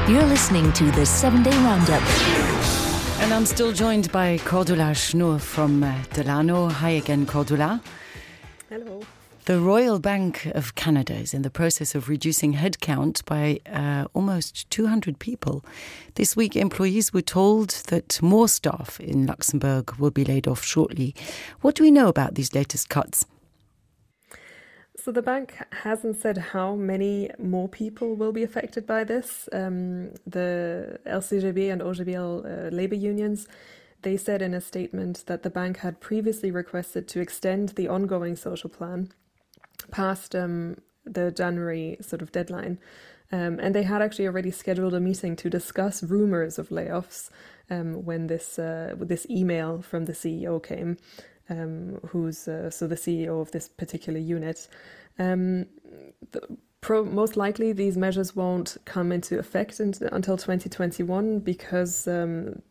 You're listening to the 7-Day Roundup. And I'm still joined by Cordula Schnur from Delano. Hi again, Cordula. Hello. The Royal Bank of Canada is in the process of reducing headcount by almost 200 people. This week, employees were told that more staff in Luxembourg will be laid off shortly. What do we know about these latest cuts? So the bank hasn't said how many more people will be affected by this. The LCGB and OGBL labour unions, they said in a statement that the bank had previously requested to extend the ongoing social plan past the January sort of deadline. And they had actually already scheduled a meeting to discuss rumours of layoffs when this email from the CEO came. Who's the CEO of this particular unit. Most likely these measures won't come into effect until 2021 because the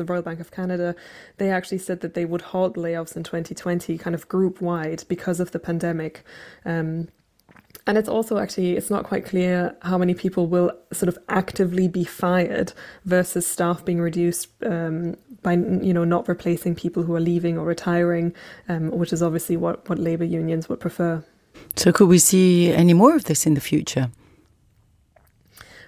Royal Bank of Canada, they actually said that they would halt layoffs in 2020 kind of group wide because of the pandemic. And it's also it's not quite clear how many people will sort of actively be fired versus staff being reduced by, not replacing people who are leaving or retiring, which is obviously what labour unions would prefer. So could we see any more of this in the future?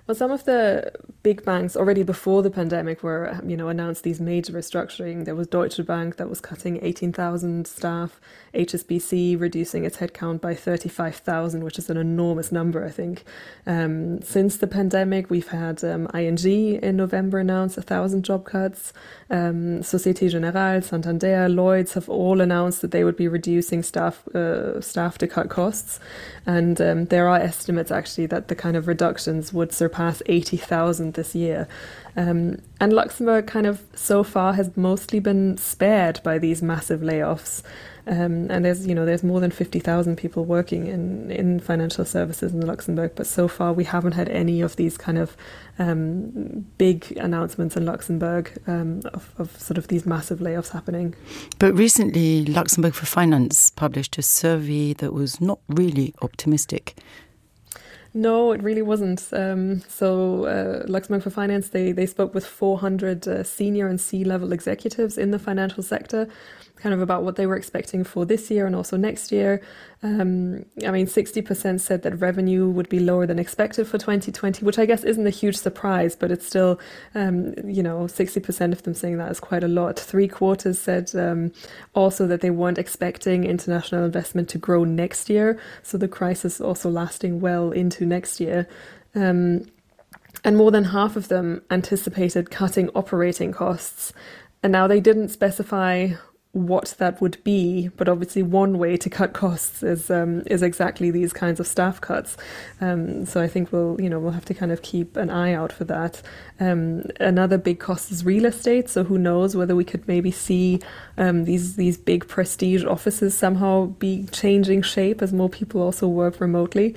Well, some of the big banks already before the pandemic were, announced these major restructuring. There was Deutsche Bank that was cutting 18,000 staff, HSBC reducing its headcount by 35,000, which is an enormous number, I think. Since the pandemic, we've had ING in November announce 1,000 job cuts. Société Générale, Santander, Lloyds have all announced that they would be reducing staff to cut costs. And there are estimates actually that the kind of reductions would surpass 80,000 this year. And Luxembourg kind of so far has mostly been spared by these massive layoffs. And there's more than 50,000 people working in financial services in Luxembourg, but so far we haven't had any of these kind of big announcements in Luxembourg of sort of these massive layoffs happening. But recently, Luxembourg for Finance published a survey that was not really optimistic. No, it really wasn't. Luxembourg for Finance, they spoke with 400 senior and C-level executives in the financial sector, kind of about what they were expecting for this year and also next year. 60% said that revenue would be lower than expected for 2020, which I guess isn't a huge surprise, but it's still, 60% of them saying that is quite a lot. 3/4 said also that they weren't expecting international investment to grow next year, so the crisis also lasting well into next year. And more than half of them anticipated cutting operating costs. And now they didn't specify what that would be, but obviously one way to cut costs is exactly these kinds of staff cuts. So I think we'll have to kind of keep an eye out for that. Another big cost is real estate. So who knows whether we could maybe see these big prestige offices somehow be changing shape as more people also work remotely.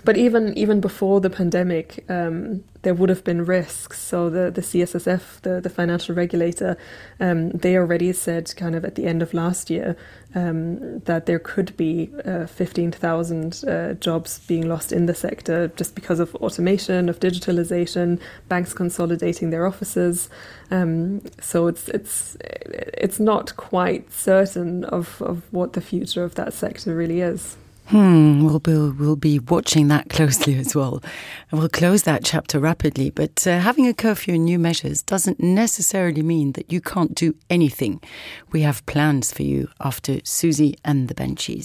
But even before the pandemic, there would have been risks. So the CSSF, the financial regulator, they already said kind of at the end of last year that there could be 15,000 jobs being lost in the sector just because of automation, of digitalization, banks consolidating their offices. So it's not quite certain of what the future of that sector really is. We'll be watching that closely as well. And we'll close that chapter rapidly. But having a curfew and new measures doesn't necessarily mean that you can't do anything. We have plans for you after Susie and the Benchies.